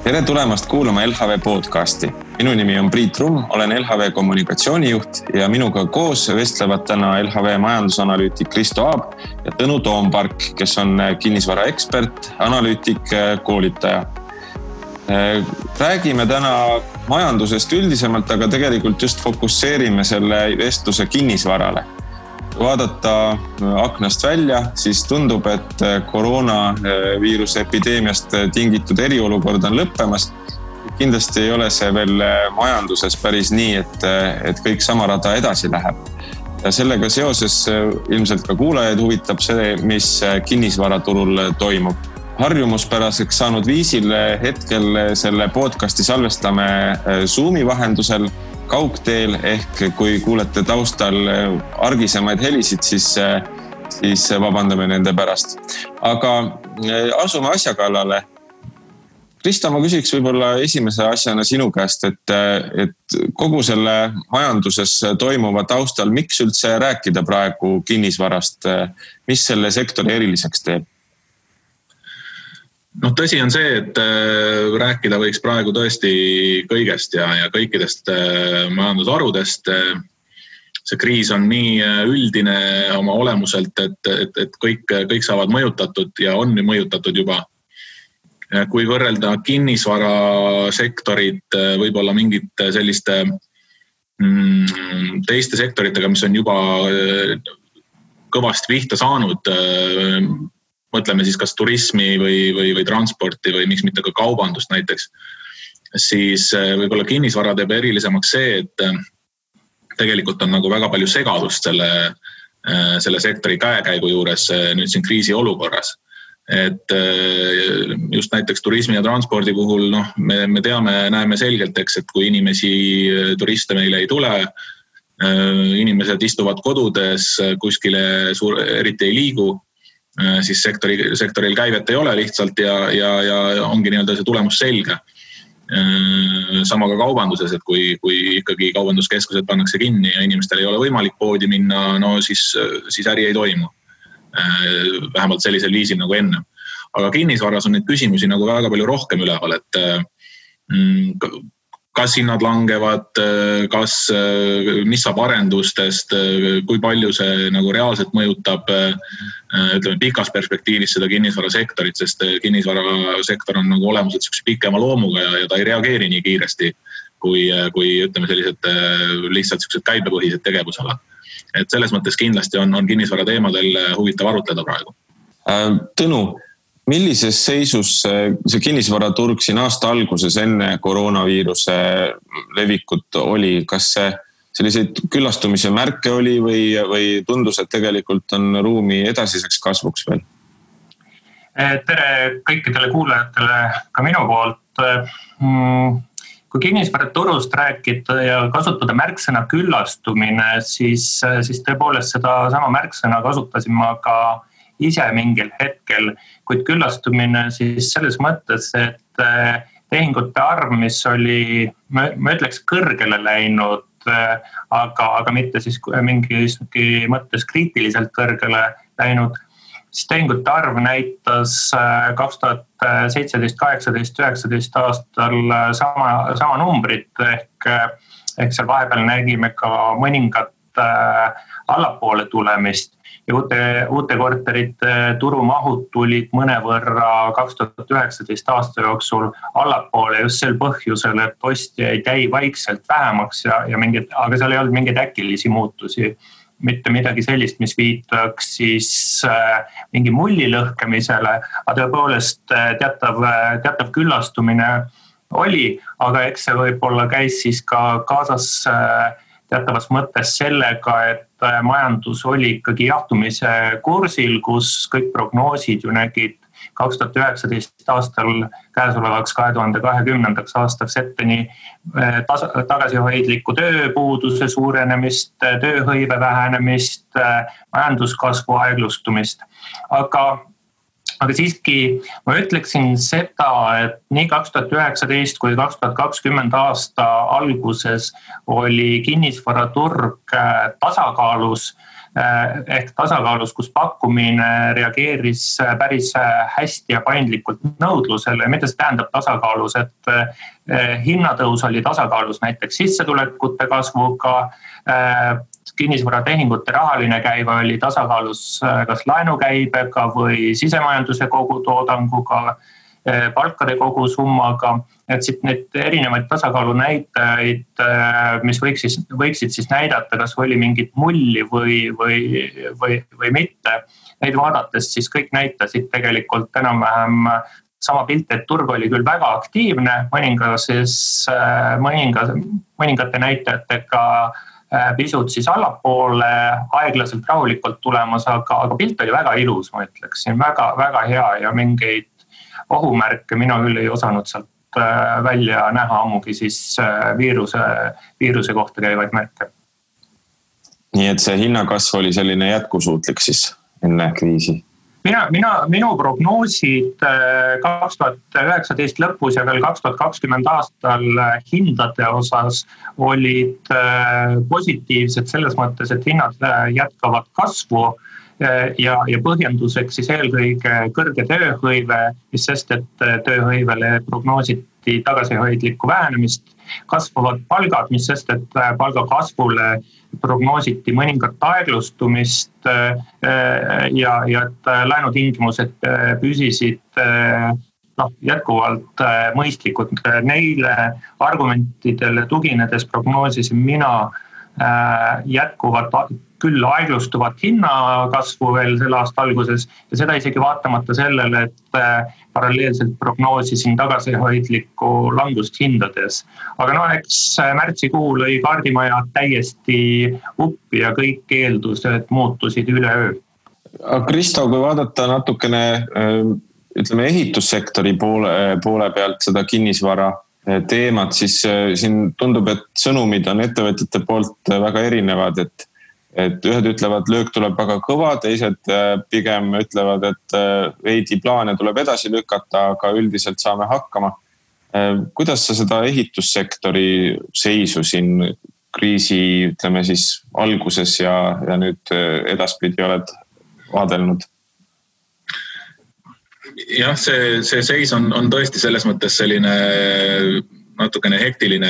Tere tulemast kuulama LHV podcasti. Minu nimi on Priit Rumm, olen LHV kommunikatsioonijuht ja minuga koos vestlevad täna LHV majandusanalüütik Kristo Aab ja Tõnu Toompark, kes on kinnisvara ekspert, analüütik, koolitaja. Räägime täna majandusest üldisemalt, aga tegelikult just fokusseerime selle vestluse kinnisvarale. Vaadata aknast välja, siis tundub, et koroonaviiruse epideemiast tingitud eriolukord on lõppemas. Kindlasti ei ole see veel majanduses päris nii, et kõik sama rada edasi läheb. Ja sellega seoses ilmselt ka kuulajaid huvitab see, mis kinnisvaraturul toimub. Harjumuspäraseks saanud viisil hetkel selle podcasti salvestame Zoomi vahendusel kaugteel, ehk kui kuulete taustal argisemaid helisid, siis vabandame nende pärast. Aga asume asja kallale. Kristo, ma küsiks võib-olla esimese asjana sinu käest, et kogu selle majanduses toimuva taustal, miks üldse rääkida praegu kinnisvarast, mis selle sektori eriliseks teeb? Tõsi on see, et rääkida võiks praegu tõesti kõigest ja kõikidest majandusharudest. See kriis on nii üldine oma olemuselt, et kõik saavad mõjutatud ja on mõjutatud juba. Kui võrrelda kinnisvarasektorit võib-olla mingite selliste teiste sektoritega, mis on juba kõvasti pihta saanud, mõtleme siis kas turismi või transporti või miks mitte ka kaubandust näiteks, siis võib-olla kinnisvara teeb erilisemaks see, et tegelikult on nagu väga palju segadust selle sektori käekäigu juures nüüd siin kriisi olukorras. Et just näiteks turismi ja transpordi puhul me näeme selgelt, et kui turiste meile ei tule, inimesed istuvad kodudes, kuskile eriti ei liigu, siis sektoril käivet ei ole lihtsalt ja ongi nii-öelda see tulemus selge. Sama ka kaubanduses, et kui ikkagi kaubanduskeskused pannakse kinni ja inimestel ei ole võimalik poodi minna, siis äri ei toimu. Vähemalt sellisel viisil nagu enne. Aga kinnisvaras on neid küsimusi nagu väga palju rohkem üleval, et kas hinnad langevad, mis saab arendustest, kui palju see nagu reaalselt mõjutab pikas perspektiivis seda kinnisvarasektorit, sest kinnisvarasektor on nagu olemuselt pikema loomuga ja ta ei reageeri nii kiiresti, kui ütleme sellised lihtsalt käibepõhised tegevusalad. Et selles mõttes kindlasti on kinnisvara teemadel huvitav arutleda praegu. Tõnu, millises seisus see kinnisvaraturg siin aasta alguses enne koroonaviiruse levikut oli? Kas selliseid küllastumise märke oli või tundus, et tegelikult on ruumi edasiseks kasvuks veel? Tere kõikidele kuulajatele ka minu poolt. Kui kinnisvaraturust rääkida ja kasutada märksõna küllastumine, siis tõepoolest seda sama märksõna kasutasin ma ka ise mingil hetkel, kuid küllastumine siis selles mõttes, et tehingute arv, mis oli, ma ütleks, kõrgele läinud, aga mitte siis mingi mõttes kriitiliselt kõrgele läinud, siis tehingute arv näitas 2017, 18, 19 aastal sama numbrit, ehk seal vahepeal nägime ka mõningat allapoole tulemist ja uute korterite turumahud tulid mõnevõrra 2019 aasta jooksul allapoole just sel põhjusel, et ostjaid jäi vaikselt vähemaks aga seal ei olnud mingeid äkilisi muutusi. Mitte midagi sellist, mis viitaks siis mingi mulli lõhkemisele, aga tõepoolest teatav küllastumine oli, aga eks see võib-olla käis siis ka kaasas teatavas mõttes sellega, et majandus oli ikkagi jahtumise kursil, kus kõik prognoosid ju nägid 2019 aastal käesolevaks 2020. Aastaks ette nii tagasihoidliku tööpuuduse suurenemist, tööhõive vähenemist, majanduskasvu aeglustumist. Aga siiski ma ütleksin seda, et nii 2019 kui 2020 aasta alguses oli kinnisvaraturg tasakaalus. ehk tasakaalus, kus pakkumine reageeris päris hästi ja paindlikult nõudlusele. Mida see tähendab tasakaalus, et hinnatõus oli tasakaalus näiteks sissetulekute kasvuga, kinnisvaratehingute rahaline käive oli tasakaalus kas laenukäibega või sisemajanduse kogutoodanguga, palkade kogusummaga, et siit need erinevaid tasakaalu näitajaid, mis võiksid siis näidata, kas oli mingit mulli või mitte. Neid vaadates siis kõik näitasid tegelikult enam-vähem sama pilti, et turg oli küll väga aktiivne, mõningate näitajatega pisut siis allapoole, aeglaselt rahulikult tulemas, aga pilt oli väga ilus, ma ütleksin, väga hea ja mingeid ohumärke mina küll ei osanud sealt välja näha, ammugi siis viiruse kohta käivaid märke. Nii et see hinnakasv oli selline jätkusuutlik siis enne kriisi? Minu prognoosid 2019 lõpus ja veel 2020 aastal hindade osas olid positiivsed selles mõttes, et hinnad jätkavad kasvu ja põhjenduseks siis eelkõige kõrge tööhõive, mis sest, et tööhõivele prognoositi tagasihoidlikku vähenemist, kasvavad palgad, mis sest, et palgakasvule prognoositi mõningat aeglustumist ja et laenutingimused püsisid jätkuvalt mõistlikud. Neile argumentidele tuginedes prognoosisin mina jätkuvat küll aeglustuvat hinnakasvu veel selle aasta alguses ja seda isegi vaatamata sellele, et paralleelselt prognoosisin tagasihoidlikku langust hindades. Aga eks märtsikuu lõi kaardimaja täiesti uppi ja kõik eeldused muutusid üleöö. Kristo, kui vaadata natukene ehitussektori poole pealt seda kinnisvara teemat, siis siin tundub, et sõnumid on ettevõtjate poolt väga erinevad, et ühed ütlevad, löök tuleb väga kõva, teised pigem ütlevad, et veidi plaane tuleb edasi lükata, aga üldiselt saame hakkama. Kuidas sa seda ehitussektori seisu siin kriisi, ütleme siis alguses ja nüüd edaspidi oled vaadelnud? Jah, see seis on tõesti selles mõttes selline natukene hektiline,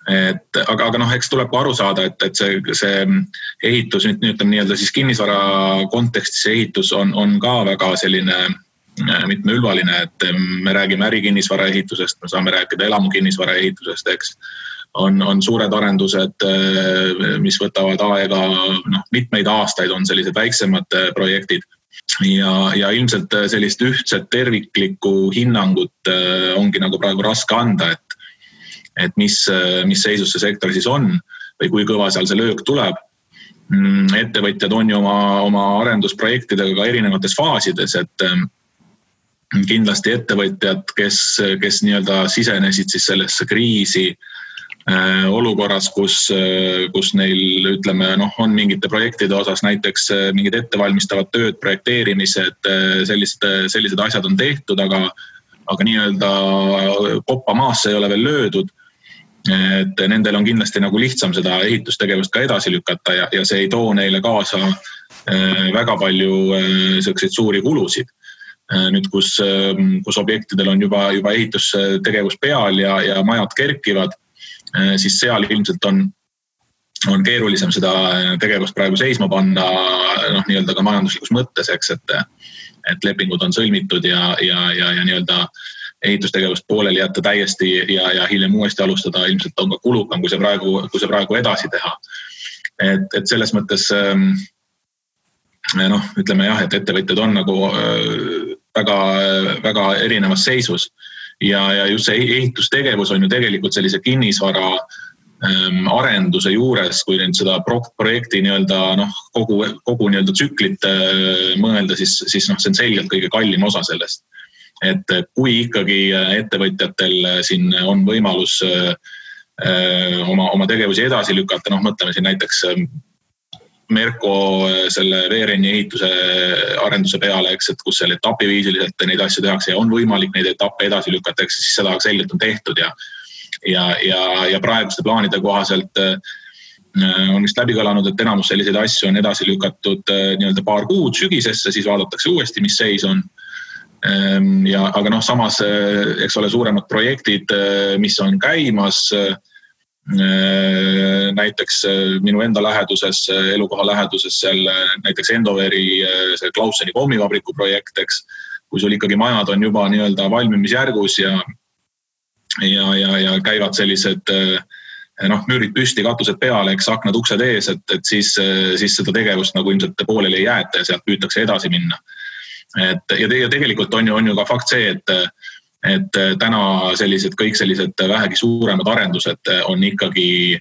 aga eks tuleb ka aru saada, et see ehitus, ütleme nii-öelda siis kinnisvara kontekstis ehitus on ka väga selline mitmeülvaline, et me räägime ärikinnisvara ehitusest, me saame rääkida elamukinnisvara ehitusest, eks. On suured arendused, mis võtavad aega, mitmeid aastaid on sellised väiksemad projektid ja ilmselt sellist ühtset terviklikku hinnangut ongi nagu praegu raske anda, et mis seisus see sektor siis on või kui kõva seal see löök tuleb. Ettevõtjad on ju oma arendusprojektidega ka erinevates faasides, et kindlasti ettevõtjad, kes nii-öelda sisenesid siis sellesse kriisi olukorras, kus neil ütleme, on mingite projektide osas näiteks mingid ettevalmistavad tööd, projekteerimised, sellised asjad on tehtud, aga nii-öelda koppa maasse ei ole veel löödud. Et nendel on kindlasti nagu lihtsam seda ehitustegevust ka edasi lükata ja see ei too neile kaasa väga palju selliseid suuri kulusid. Nüüd, kus objektidel on juba ehitustegevus peal ja majad kerkivad, siis seal ilmselt on keerulisem seda tegevust praegu seisma panna nii-öelda ka majanduslikus mõttes, eks, et lepingud on sõlmitud ja nii-öelda ehitustegevust pooleli jätta täiesti ja hiljem uuesti alustada ilmselt on ka kulukam, kui see praegu edasi teha. Et selles mõttes ütleme jah, et ettevõtjad on nagu väga, väga erinevas seisus ja just see ehitustegevus on ju tegelikult sellise kinnisvara arenduse juures, kui nüüd seda projekti nii-öelda kogu nii-öelda tsüklit mõelda, siis see on selgelt kõige kallim osa sellest. Et kui ikkagi ettevõtjatel siin on võimalus oma tegevusi edasi lükata, mõtleme siin näiteks Merko selle veerenni ehituse arenduse peale, eks, et kus seal etapiviisiliselt neid asju tehakse ja on võimalik neid etappe edasi lükata, eks, siis seda selgelt on tehtud ja praeguste plaanide kohaselt on vist läbi kõlanud, et enamus selliseid asju on edasi lükatud nii-öelda paar kuud sügisesse, siis vaadatakse uuesti, mis seis on. Aga samas, eks ole, suuremad projektid, mis on käimas, näiteks minu enda läheduses, elukoha läheduses seal näiteks Endoveri see Klausseni pommivabriku projekt, eks, kui sul ikkagi majad on juba nii-öelda valmimisjärgus ja käivad sellised müürid püsti, katused peale, eks, aknad, uksed ees, et siis seda tegevust nagu ilmselt pooleli ei jäeta ja sealt püütakse edasi minna. Ja tegelikult on ju ka fakt see, et täna kõik sellised vähegi suuremad arendused on ikkagi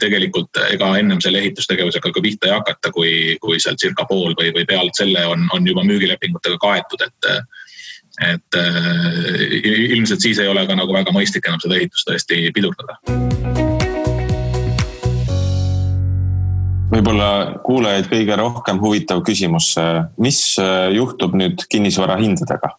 tegelikult ega ennem selle ehitustegevusega ka pihta ei hakata, kui seal circa pool või pealt selle on juba müügilepingutega kaetud, et ilmselt siis ei ole ka nagu väga mõistlik enam seda ehitust tõesti pidurdada. Võib-olla kuulajaid kõige rohkem huvitav küsimus. Mis juhtub nüüd kinnisvara hindadega?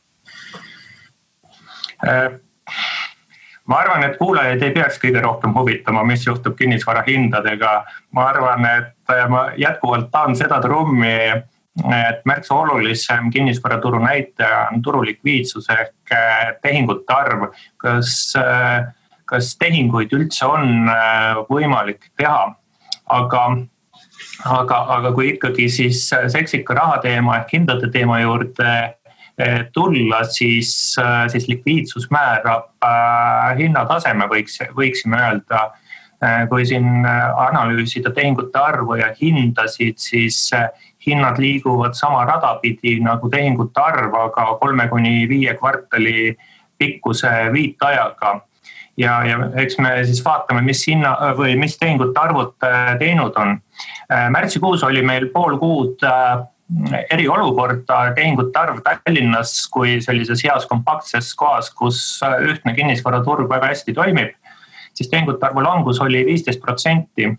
Ma arvan, et kuulajaid ei peaks kõige rohkem huvitama, mis juhtub kinnisvara hindadega. Ma arvan, et ma jätkuvalt tahan seda trummi, et märksa olulisem kinnisvaraturu näitaja on turu likviidsus ehk tehingute arv. Kas tehinguid üldse on võimalik teha? Aga kui ikkagi siis seksika raha teema ehk hindade teema juurde tulla, siis likviidsus määrab hinnataseme, võiksime öelda. Kui siin analüüsida tehingute arvu ja hindasid, siis hinnad liiguvad sama radapidi nagu tehingute arv, aga 3-5 kvartali pikkuse viitajaga. Ja eks me siis vaatame, mis tehingute arvud teinud on. Märtsikuus oli meil pool kuud eriolukorda tehingute arv Tallinnas kui sellises heas kompaktses kohas, kus ühtne kinnisvaraturg väga hästi toimib, siis tehingute arvu langus oli 15%.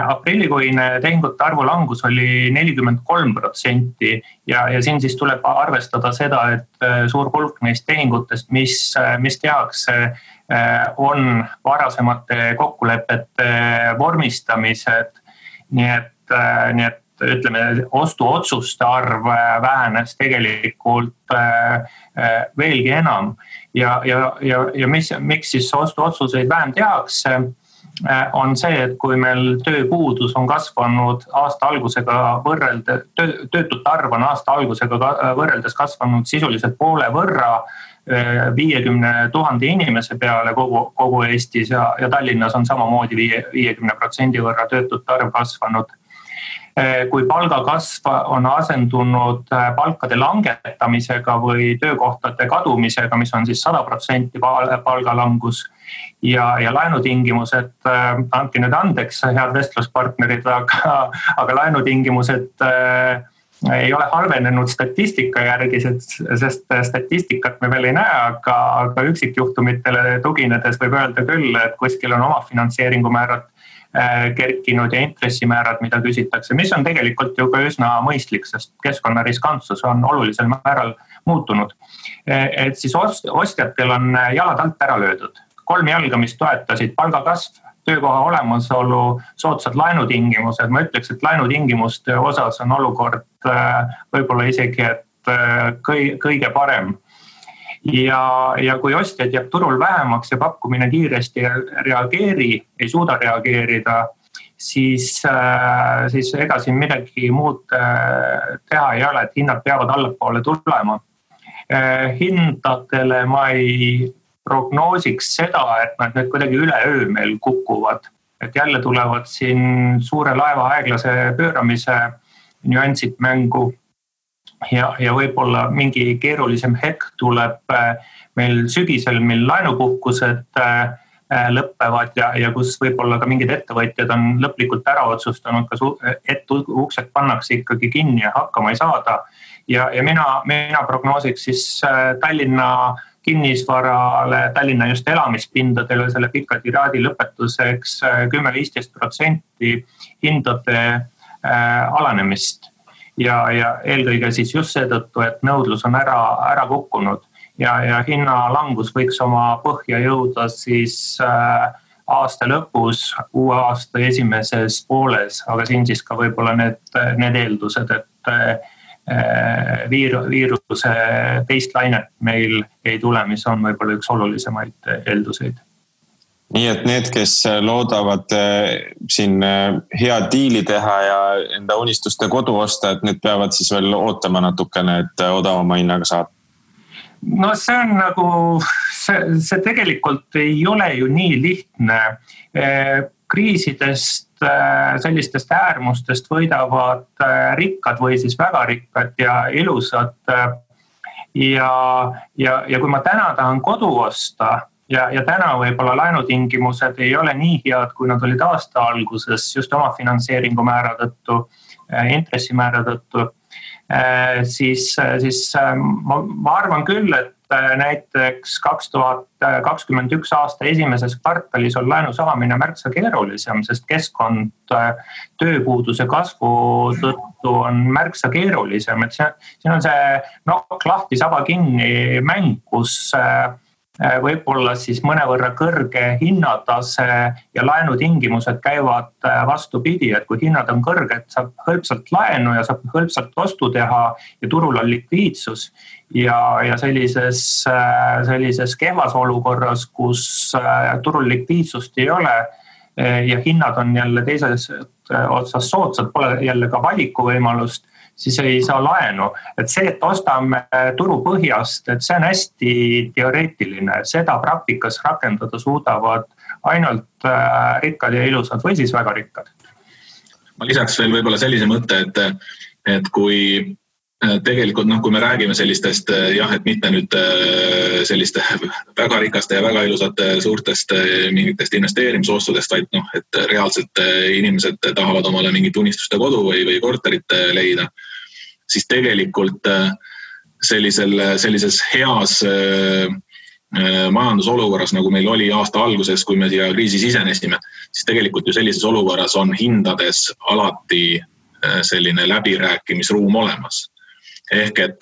Aprillikuine tehingute arvu langus oli 43% ja siin siis tuleb arvestada seda, et suur hulk neist tehingutest, mis tehakse, on varasemate kokkulepete vormistamised, nii et ütleme, ostuotsuste arv vähenes tegelikult veelgi enam ja miks siis ostuotsuseid vähem tehakse, on see, et kui meil tööpuudus on kasvanud aasta algusega töötute arv on aasta algusega võrreldes kasvanud sisuliselt poole võrra 50 000 inimese peale kogu Eestis ja Tallinnas on samamoodi 50% võrra töötute arv kasvanud. Kui palgakasv on asendunud palkade langetamisega või töökohtade kadumisega, mis on siis 100% palgalangus ja laenutingimused, andke nüüd andeks, head vestluspartnerid, aga laenutingimused ei ole halvenenud statistika järgi, sest statistikat me veel ei näe, aga üksikjuhtumitele tuginedes võib öelda küll, et kuskil on omafinantseeringu määrad kerkinud ja intressimäärad, mida küsitakse, mis on tegelikult ju ka üsna mõistlik, sest keskkonnariskantsus on olulisel määral muutunud. Et siis ostjatel on jalad alt ära löödud. 3 jalga, mis toetasid palgakasv, töökoha olemasolu, soodsad laenutingimused. Ma ütleks, et laenutingimuste osas on olukord võib-olla isegi kõige parem. Ja kui ostjad jääb turul vähemaks ja pakkumine kiiresti ei suuda reageerida, siis ega siin midagi muud teha ei ole, et hinnad peavad allapoole tulema. Hindadele ma ei prognoosiks seda, et nad nüüd kuidagi üleöö meil kukuvad. Et jälle tulevad siin suure laeva aeglase pööramise nüansid mängu. Ja võib-olla mingi keerulisem hetk tuleb meil sügisel, mil laenupuhkused lõppevad ja kus võib-olla ka mingid ettevõtjad on lõplikult ära otsustanud, et uksed pannakse ikkagi kinni ja hakkama ei saada. Ja mina prognoosiks siis Tallinna kinnisvarale, Tallinna just elamispindadele selle pika tiraadi lõpetuseks 10-15% hindade alanemist. Ja eelkõige siis just seetõttu, et nõudlus on ära kukkunud ja hinnalangus võiks oma põhja jõuda siis aasta lõpus, uue aasta esimeses pooles, aga siin siis ka võib-olla need eeldused, et viiruse teist lainet meil ei tule, mis on võib-olla üks olulisemaid eelduseid. Nii et need, kes loodavad siin hea diili teha ja enda unistuste kodu osta, et need peavad siis veel ootama natukene, et odavama hinnaga saada? No see on nagu, see tegelikult ei ole ju nii lihtne. Kriisidest, sellistest äärmustest võidavad rikkad või siis väga rikkad ja ilusad. Ja kui ma täna tahan kodu osta ja täna võib-olla laenutingimused ei ole nii head, kui nad olid aasta alguses just oma finantseeringu määra tõttu, intressimäära tõttu, siis ma arvan küll, et näiteks 2021 aasta esimeses kvartalis on laenu saamine märksa keerulisem, sest keskkond tööpuuduse kasvu tõttu on märksa keerulisem. Et siin on see nokk lahti, saba kinni mäng, kus võib-olla siis mõnevõrra kõrge hinnatase ja laenutingimused käivad vastupidi, et kui hinnad on kõrged, saab hõlpsalt laenu ja saab hõlpsalt ostu teha ja turul on likviidsus ja sellises kehvas olukorras, kus turul likviidsust ei ole ja hinnad on jälle teises otsas soodsad, pole jälle ka valikuvõimalust, siis ei saa laenu. Et see, et ostame turu põhjast, et see on hästi teoreetiline. Seda praktikas rakendada suudavad ainult rikkad ja ilusad või siis väga rikkad. Ma lisaks veel võib-olla sellise mõtte, et kui tegelikult, kui me räägime sellistest, et mitte nüüd selliste väga rikaste ja väga ilusate suurtest mingitest investeerimisostudest, vaid et reaalselt inimesed tahavad omale mingit unistuste kodu või korterit leida, siis tegelikult sellises heas majandusolukorras, nagu meil oli aasta alguses, kui me siia kriisi sisenesime, siis tegelikult ju sellises olukorras on hindades alati selline läbirääkimisruum olemas. Ehk et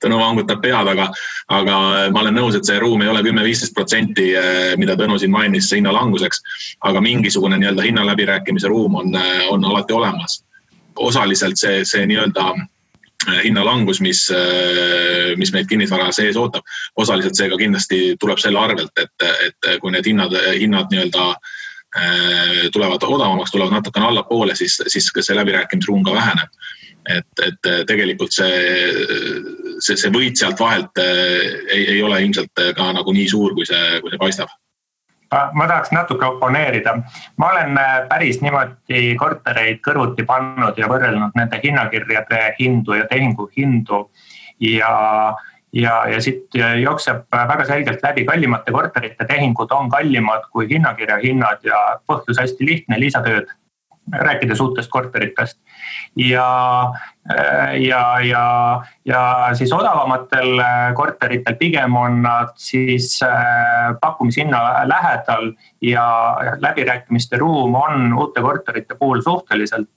Tõnu vangutab pead, aga ma olen nõus, et see ruum ei ole 10-15%, mida Tõnu siin mainis hinnalanguseks, aga mingisugune hinnaläbirääkimise ruum on alati olemas. Osaliselt see hinnalangus, mis meid kinnisvara sees ootab, osaliselt see ka kindlasti tuleb selle arvelt, et kui need hinnad tulevad odavamaks, tulevad natukene allapoole, siis see läbirääkimisruum ka väheneb. Et tegelikult see võit sealt vahelt ei ole ilmselt ka nagu nii suur, kui see paistab. Ma tahaks natuke oponeerida. Ma olen päris niimoodi kortereid kõrvuti pannud ja võrrelnud nende hinnakirjade hindu ja tehingu hindu ja siit jookseb väga selgelt läbi kallimate korterite tehingud on kallimad kui hinnakirja hinnad ja põhjus hästi lihtne, lisatööd, rääkides uutest korteritest. Ja siis odavamatel korteritel pigem on nad siis pakkumishinna lähedal ja läbirääkimiste ruum on uute korterite puhul suhteliselt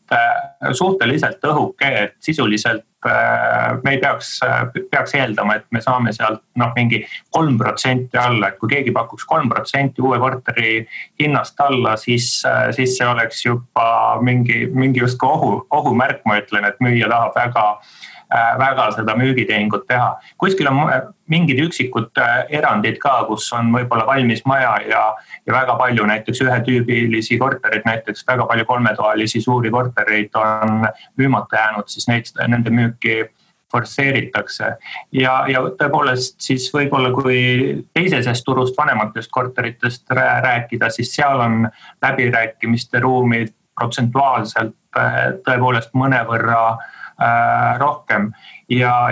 õhuke, et sisuliselt me ei peaks eeldama, et me saame sealt mingi 3% alla, et kui keegi pakuks 3% uue korteri hinnast alla, siis see oleks juba mingi just ohumärk, ma ütlen, et müüja tahab väga seda müügitehingut teha. Kuskil on mingid üksikud erandid ka, kus on võib-olla valmis maja ja väga palju näiteks ühetüübilisi korterid, näiteks väga palju kolmetoalisi suuri kortereid on müümata jäänud, siis nende müüki forsseeritakse. Ja tõepoolest siis võib-olla kui teisesest turust vanematest korteritest rääkida, siis seal on läbirääkimiste ruumid protsentuaalselt tõepoolest mõnevõrra rohkem. Ja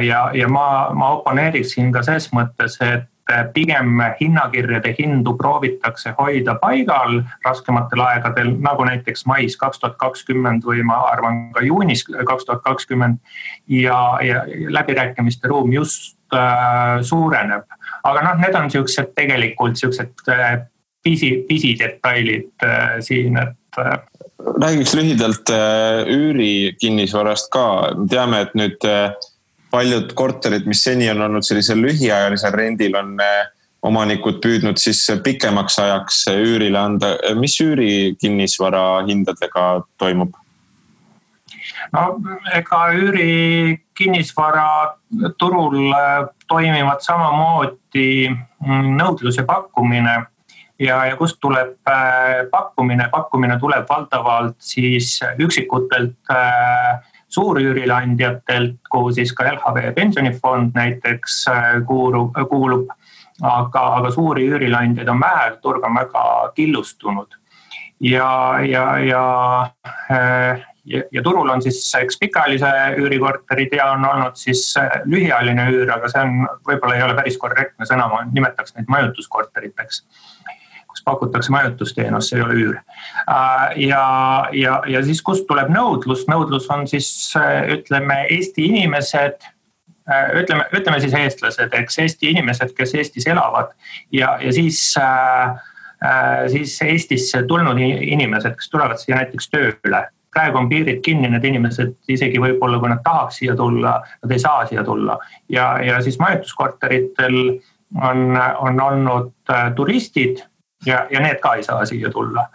ma oponeeriksin ka selles mõttes, et pigem hinnakirjade hindu proovitakse hoida paigal raskematel aegadel, nagu näiteks mais 2020 või ma arvan ka juunis 2020 ja läbirääkimiste ruum just suureneb. Aga need on tegelikult pisidetailid siin, et räägiks lühidalt üüri kinnisvarast ka. Teame, et nüüd paljud korterid, mis seni on olnud sellisel lühiajalisel rendil, on omanikud püüdnud siis pikemaks ajaks üürile anda. Mis üüri kinnisvara hindadega toimub? No ega üüri kinnisvara turul toimivad samamoodi nõudlus ja pakkumine ja kust tuleb pakkumine? Pakkumine tuleb valdavalt siis üksikutelt suurüürilandjatelt, kuhu siis ka LHV pensionifond näiteks kuulub, aga suuri üürilandjaid on vähe, turg on väga killustunud. Ja turul on siis eks pikaajalise üürikorterid ja on olnud siis lühiajaline üür, aga see on võib-olla ei ole päris korrektne sõna, ma nimetaks neid majutuskorteriteks, kus pakutakse majutusteenus, see ei ole üür. Ja siis kust tuleb nõudlus? Nõudlus on siis, ütleme, Eesti inimesed, ütleme siis eestlased, eks Eesti inimesed, kes Eestis elavad ja siis Eestisse tulnud inimesed, kes tulevad siia näiteks tööle. Praegu on piirid kinni, need inimesed isegi võib-olla, kui nad tahaks siia tulla, nad ei saa siia tulla. Ja siis majutuskorteritel on olnud turistid ja need ka ei saa siia tulla.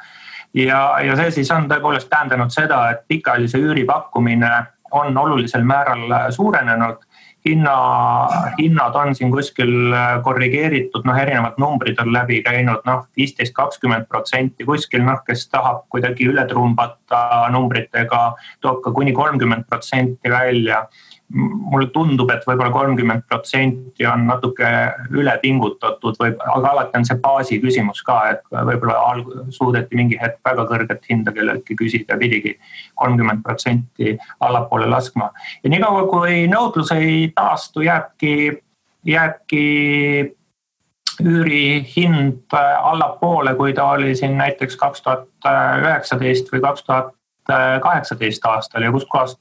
Ja see siis on tõepoolest tähendanud seda, et pikaajalise üüri pakkumine on olulisel määral suurenenud. Hinnad on siin kuskil korrigeeritud, erinevad numbrid on läbi käinud, 15-20% kuskil, kes tahab kuidagi üle trumbata numbritega, toob ka kuni 30% välja. Mulle tundub, et võib-olla 30% on natuke üle pingutatud, aga alati on see baasi küsimus ka, et võib-olla suudeti mingi hetk väga kõrget hinda kelleltki küsida ja pidigi 30% allapoole laskma. Ja nii kaua, kui nõudlus ei taastu, jääbki üüri hind allapoole, kui ta oli siin näiteks 2019 või 2018 aastal ja kust kohast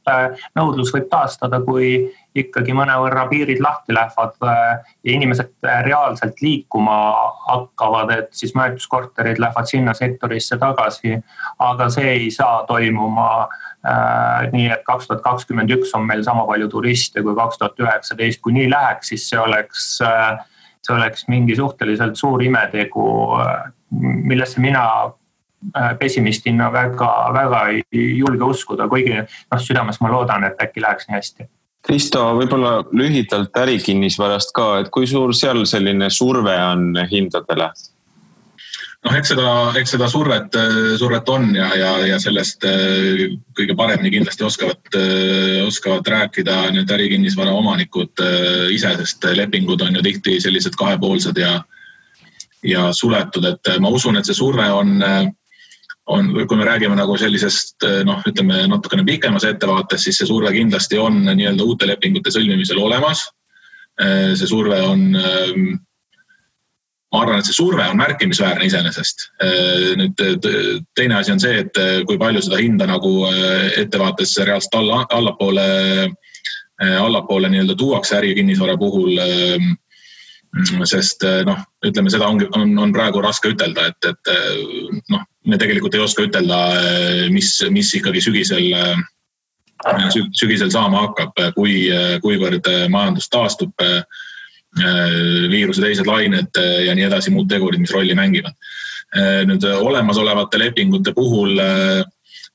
nõudlus võib taastada, kui ikkagi mõnevõrra piirid lahti lähevad ja inimesed reaalselt liikuma hakkavad, et siis majutuskorterid lähevad sinna sektorisse tagasi, aga see ei saa toimuma nii, et 2021 on meil sama palju turiste kui 2019, kui nii läheks, siis see oleks mingi suhteliselt suur imetegu, millesse mina pessimistina väga ei julge uskuda, kuigi südames ma loodan, et äkki läheks nii hästi. Kristo, võib-olla lühidalt ärikinnisvarast ka, et kui suur seal selline surve on hindadele? Eks seda survet on ja sellest kõige paremini kindlasti oskavad rääkida need ärikinnisvara omanikud ise, sest lepingud on ju tihti sellised kahepoolsed ja suletud, et ma usun, et see surve on, kui me räägime nagu sellisest, ütleme natukene pikemas ettevaates, siis see surve kindlasti on nii-öelda uute lepingute sõlmimisel olemas. See surve on, ma arvan, et see surve on märkimisväärne iseenesest. Nüüd teine asi on see, et kui palju seda hinda nagu ettevaates reaalselt allapoole nii-öelda tuuakse ärikinnisvara puhul, sest ütleme, seda on praegu raske ütelda, et me tegelikult ei oska ütelda, mis ikkagi sügisel saama hakkab, kuivõrd majandus taastub, viiruse teised lained ja nii edasi, muud tegurid, mis rolli mängivad. Nüüd olemasolevate lepingute puhul,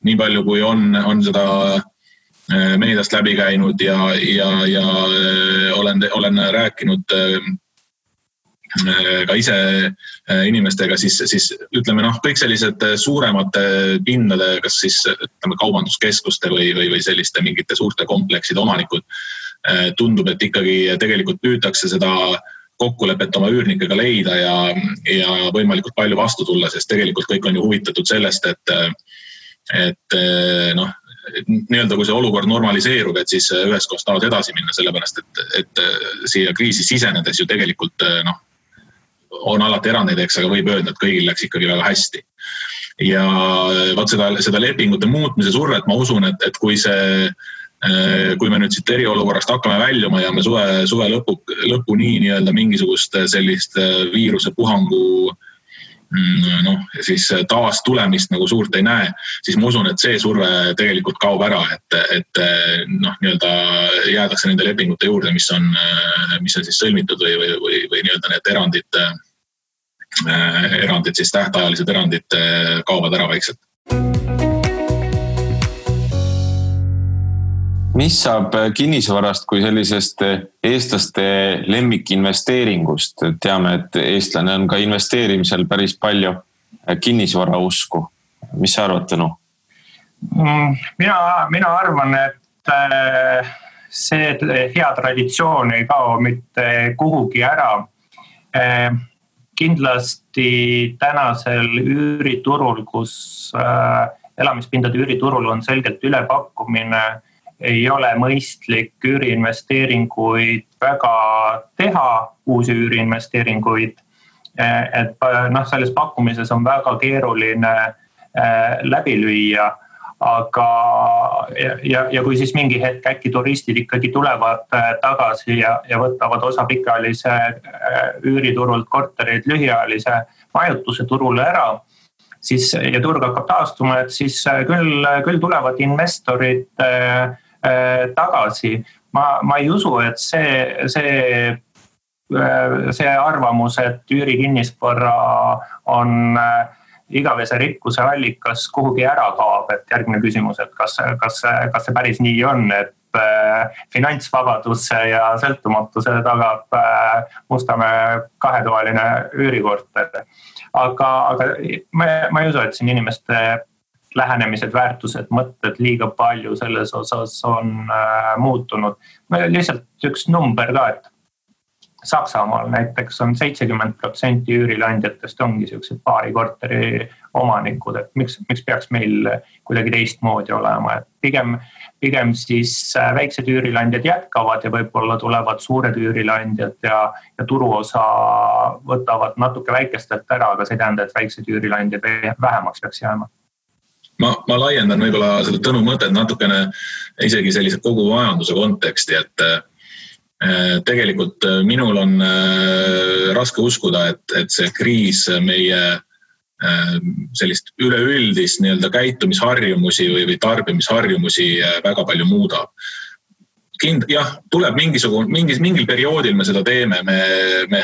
nii palju kui on seda meediast läbi käinud ja olen rääkinud ka ise inimestega, siis ütleme, kõik sellised suuremate pindade, kas siis ütleme, kaubanduskeskuste või selliste mingite suurte komplekside omanikud, tundub, et ikkagi tegelikult püütakse seda kokkulepet oma üürnikega leida ja võimalikult palju vastu tulla, sest tegelikult kõik on ju huvitatud sellest, et nii-öelda kui see olukord normaliseerub, et siis ühes kohas tahavad edasi minna, sellepärast, et siia kriisi sisenedes ju tegelikult on alati erandeid, aga võib öelda, et kõigil läks ikkagi väga hästi. Ja vaat seda lepingute muutmise survet ma usun, et kui me nüüd siit eriolukorrast hakkame väljuma ja me suve lõpuni nii-öelda mingisugust sellist viirusepuhangu siis taas tulemist nagu suurt ei näe, siis ma usun, et see surve tegelikult kaob ära, et nii-öelda jäädakse nende lepingute juurde, mis on siis sõlmitud või nii-öelda need erandid siis tähtajalised erandid kaovad ära vaikselt. Mis saab kinnisvarast kui sellisest eestlaste lemmikinvesteeringust? Teame, et eestlane on ka investeerimisel päris palju kinnisvara usku. Mis sa arvad, Tõnu? Mina arvan, et see hea traditsioon ei kao mitte kuhugi ära. Kindlasti tänasel üüriturul, kus elamispindade üüriturul on selgelt ülepakkumine, ei ole mõistlik üüriinvesteeringuid väga teha, uusi üüriinvesteeringuid. Et selles pakkumises on väga keeruline läbi lüüa, aga ja kui siis mingi hetk äkki turistid ikkagi tulevad tagasi ja võtavad osa pikaajalise üüriturult korterid lühiajalise majutuse turule ära, siis ja turg hakkab taastuma, et siis küll tulevad investorid tagasi. Ma ei usu, et see arvamus, et üürikinnisvara on igavese rikkuse allikas kuhugi ära kaob, et järgmine küsimus, et kas see päris nii on, et finantsvabaduse ja sõltumatuse tagab Mustamäe kahetoaline üürikorter. Aga ma ei usu, et siin inimeste lähenemised, väärtused, mõtted liiga palju selles osas on muutunud. Lihtsalt üks number ka, et Saksamaal näiteks on 70% üürilandjatest ongi sellised paari korteri omanikud, et miks peaks meil kuidagi teistmoodi olema. Et pigem siis väiksed üürilandjad jätkavad ja võib-olla tulevad suured üürilandjad ja turuosa võtavad natuke väikestelt ära, aga see ei tähenda, et väiksed üürilandjad vähemaks peaks jääma. Ma laiendan võib-olla seda Tõnu mõtet natukene isegi sellise kogu majanduse konteksti, et tegelikult minul on raske uskuda, et see kriis meie sellist üleüldist nii-öelda käitumisharjumusi või tarbimisharjumusi väga palju muudab. Jah, tuleb mingil perioodil me seda teeme, me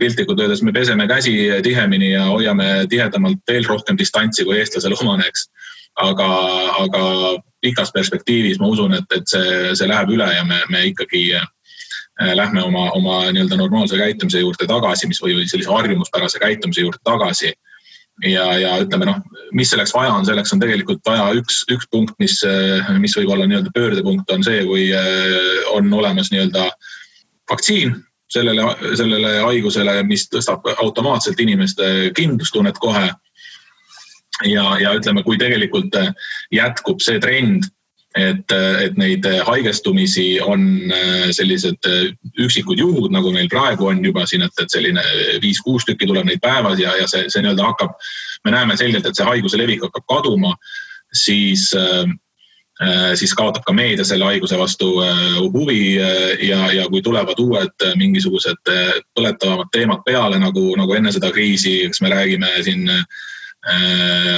piltlikult öeldes me peseme käsi tihemini ja hoiame tihedamalt veel rohkem distantsi kui eestlasel omaneks. Aga pikas perspektiivis ma usun, et see läheb üle ja me ikkagi lähme oma nii-öelda normaalse käitumise juurde tagasi, või sellise harjumuspärase käitumise juurde tagasi. Ja ütleme, mis selleks vaja on, selleks on tegelikult vaja üks punkt, mis võib olla nii-öelda pöördepunkt on see, kui on olemas nii-öelda vaktsiin sellele haigusele, mis tõstab automaatselt inimeste kindlustunnet kohe. Ja ütleme, kui tegelikult jätkub see trend, et neid haigestumisi on sellised üksikud juhud, nagu meil praegu on juba siin, et selline 5-6 tükki tuleb neid päevas ja see nii-öelda hakkab, me näeme selgelt, et see haiguse levik hakkab kaduma, siis kaotab ka meedia selle haiguse vastu huvi ja kui tulevad uued mingisugused põletavamad teemad peale, nagu enne seda kriisi, kas me räägime siin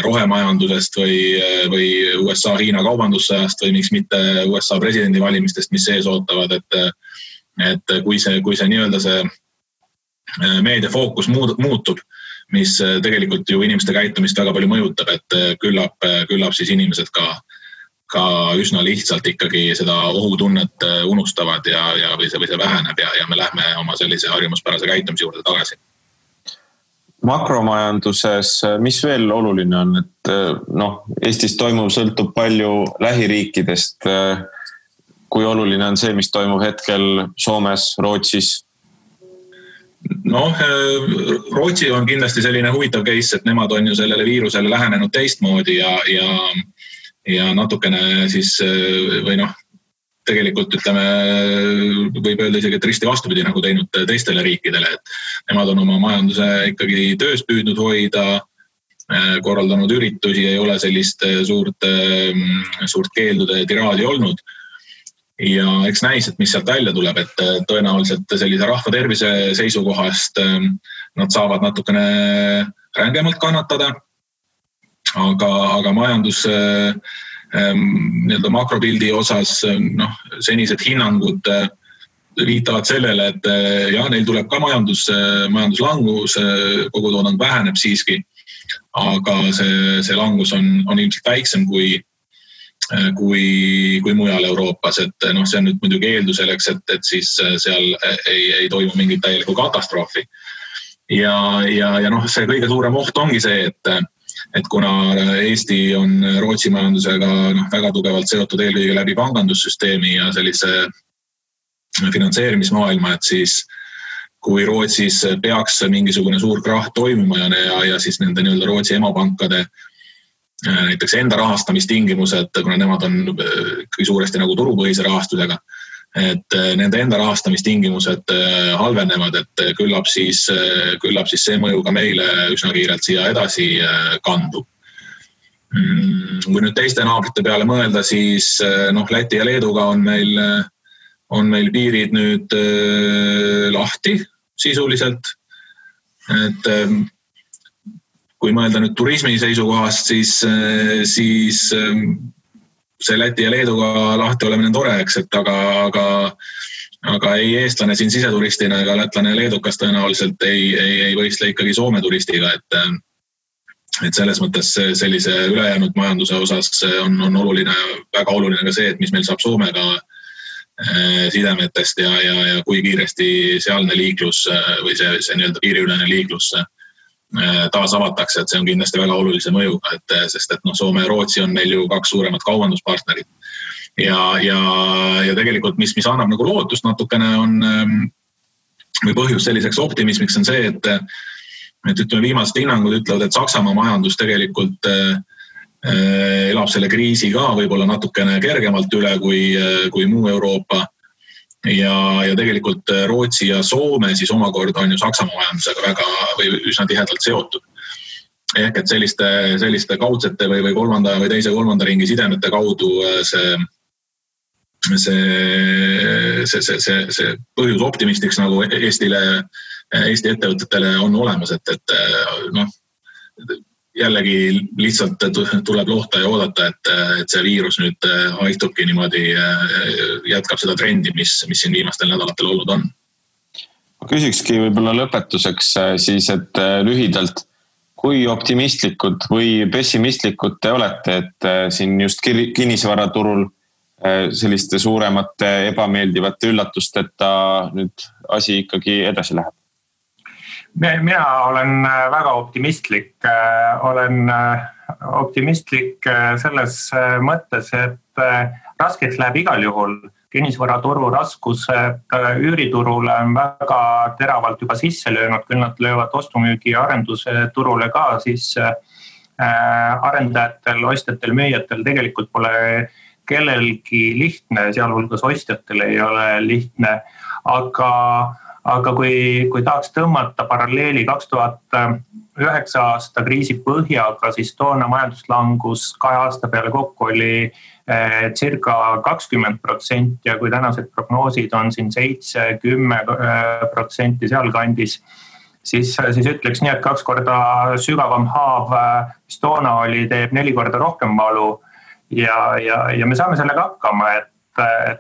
rohemajandusest või USA-Hiina kaubandussõjast või miks mitte USA presidendivalimistest, mis sees ootavad, et kui see nii-öelda see meedia fookus muutub, mis tegelikult ju inimeste käitumist väga palju mõjutab, et küllap siis inimesed ka üsna lihtsalt ikkagi seda ohutunnet unustavad või see väheneb ja me lähme oma sellise harjumuspärase käitumise juurde tagasi. Makromajanduses, mis veel oluline on, et Eestis toimuv sõltub palju lähiriikidest. Kui oluline on see, mis toimub hetkel Soomes, Rootsis? Rootsi on kindlasti selline huvitav case, et nemad on ju sellele viirusele lähenenud teistmoodi ja natukene siis tegelikult ütleme, võib öelda isegi, et risti vastupidi nagu teinud teistele riikidele, et nemad on oma majanduse ikkagi töös püüdnud hoida, korraldanud üritusi, ei ole sellist suurt keeldude tiraadi olnud. Ja eks näis, et mis sealt välja tuleb, et tõenäoliselt sellise rahva tervise seisukohast nad saavad natukene rängemalt kannatada, aga majandus nii-öelda makropildi osas senised hinnangud viitavad sellele, et neil tuleb ka majanduslangus, kogutoodang väheneb siiski, aga see langus on ilmselt väiksem kui mujal Euroopas, et see on nüüd muidugi eeldus selleks, et siis seal ei toimu mingit täielikku katastroofi. Ja see kõige suurem oht ongi see, et kuna Eesti on Rootsi majandusega väga tugevalt seotud eelkõige läbi pangandussüsteemi ja sellise finantseerimismaailma, et siis kui Rootsis peaks mingisugune suur krahh toimuma ja siis nende nii-öelda Rootsi emapankade näiteks enda rahastamistingimused, kuna nemad on suuresti nagu turupõhise rahastusega, et nende enda rahastamistingimused halvenevad, et küllap siis see mõju ka meile üsna kiirelt siia edasi kandub. Kui nüüd teiste naabrite peale mõelda, siis Läti ja Leeduga on meil piirid nüüd lahti sisuliselt, et kui mõelda nüüd turismi seisukohast, siis see Läti ja Leeduga lahti olemine tore, eks, et aga ei eestlane siin siseturistina ega lätlane ja leedukas tõenäoliselt ei võistle ikkagi Soome turistiga, et selles mõttes sellise ülejäänud majanduse osas on oluline, väga oluline ka see, et mis meil saab Soomega sidemetest ja kui kiiresti sealne liiklus või see nii-öelda piiriülene liiklus taas avatakse, et see on kindlasti väga olulise mõjuga, sest Soome ja Rootsi on meil ju kaks suuremat kaubanduspartnerit. Ja tegelikult, mis annab nagu lootust natukene või põhjus selliseks optimismiks on see, et ütleme viimased hinnangud ütlevad, et Saksamaa majandus tegelikult elab selle kriisi ka võib-olla natukene kergemalt üle kui muu Euroopa. Ja tegelikult Rootsi ja Soome siis omakorda on ju Saksamaa majandusega väga või üsna tihedalt seotud. Ehk et selliste kaudsete või kolmanda või teise kolmanda ringi sidemete kaudu see põhjus optimistiks nagu Eesti ettevõtetele on olemas, et jällegi lihtsalt tuleb lohta ja oodata, et see viirus nüüd haihtubki niimoodi, jätkab seda trendi, mis siin viimastel nädalatel olnud on. Ma küsikski võib-olla lõpetuseks siis, et lühidalt, kui optimistlikud või pessimistlikud te olete, et siin just kinnisvaraturul selliste suuremate ebameeldivate üllatusteta nüüd asi ikkagi edasi läheb? Mina olen väga optimistlik. Olen optimistlik selles mõttes, et raskeks läheb igal juhul. Kinnisvaraturu raskused üüriturule on väga teravalt juba sisse löönud, küll nad löövad ostumüügi ja arenduse turule ka, siis arendajatel, ostjatel, müüjatel tegelikult pole kellelgi lihtne, sealhulgas ostjatel ei ole lihtne, aga kui tahaks tõmmata paralleeli 2009 aasta kriisi põhjaga, siis toona majanduslangus 2 aasta peale kokku oli circa 20% ja kui tänased prognoosid on siin 7-10% sealkandis, siis ütleks nii, et 2 korda sügavam haav, mis toona oli, teeb 4 korda rohkem valu ja me saame sellega hakkama, et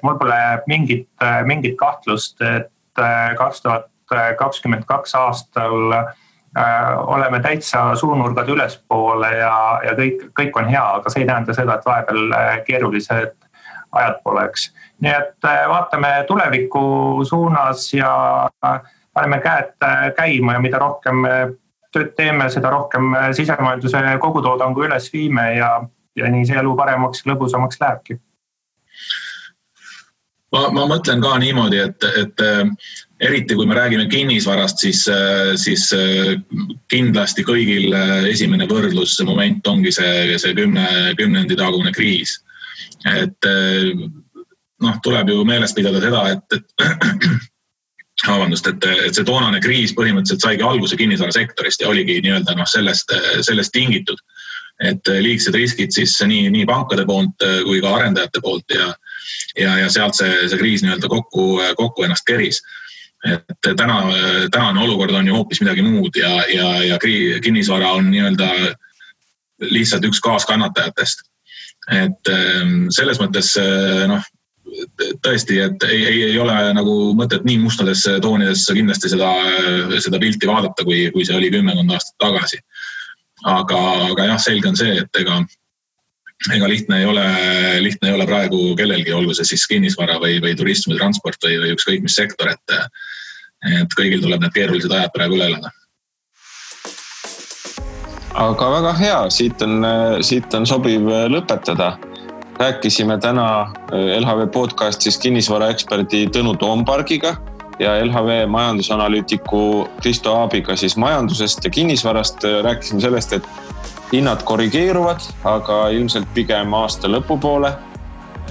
mul pole mingit kahtlust, et 2022 aastal oleme täitsa suunurgad ülespoole ja kõik on hea, aga see ei tähenda seda, et vahepeal keerulised ajad poleks. Nii et vaatame tuleviku suunas ja paneme käed käima ja mida rohkem tööd teeme, seda rohkem sisemajanduse kogutoodangu üles viime ja nii see elu paremaks ja lõbusamaks lähebki. Ma mõtlen ka niimoodi, et eriti kui me räägime kinnisvarast, siis kindlasti kõigil esimene võrdlusmoment ongi see 10 tagune kriis. Et tuleb ju meeles pidada seda, et see toonane kriis põhimõtteliselt saigi alguse kinnisvarasektorist ja oligi nii-öelda sellest tingitud, et liigsed riskid siis nii pankade poolt kui ka arendajate poolt ja sealt see kriis nii-öelda kokku ennast keris. et tänane olukord on ju hoopis midagi muud ja kinnisvara on nii-öelda lihtsalt üks kaaskannatajatest. Et selles mõttes tõesti, et ei ole nagu mõtet nii mustadesse toonidesse kindlasti seda pilti vaadata, kui see oli 10 aastat tagasi. Aga jah, selge on see, et ega lihtne ei ole praegu kellelgi, olgu see siis kinnisvara või turism või transport või ükskõik mis sektor, et kõigil tuleb need keerulised ajad praegu üle elada. Aga väga hea, siit on sobiv lõpetada. Rääkisime täna LHV podcastis kinnisvaraeksperdi Tõnu Toompargiga ja LHV majandusanalüütiku Kristo Aabiga siis majandusest ja kinnisvarast. Rääkisime sellest, et hinnad korrigeeruvad, aga ilmselt pigem aasta lõpupoole.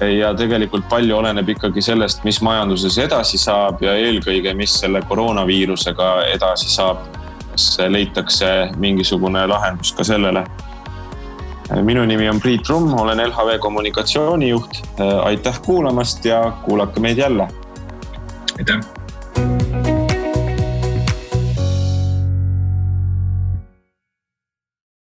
Ja tegelikult palju oleneb ikkagi sellest, mis majanduses edasi saab ja eelkõige, mis selle koroonaviirusega edasi saab. Kas leitakse mingisugune lahendus ka sellele. Minu nimi on Priit Rumm, olen LHV kommunikatsioonijuht. Aitäh kuulamast ja kuulake meid jälle. Aitäh!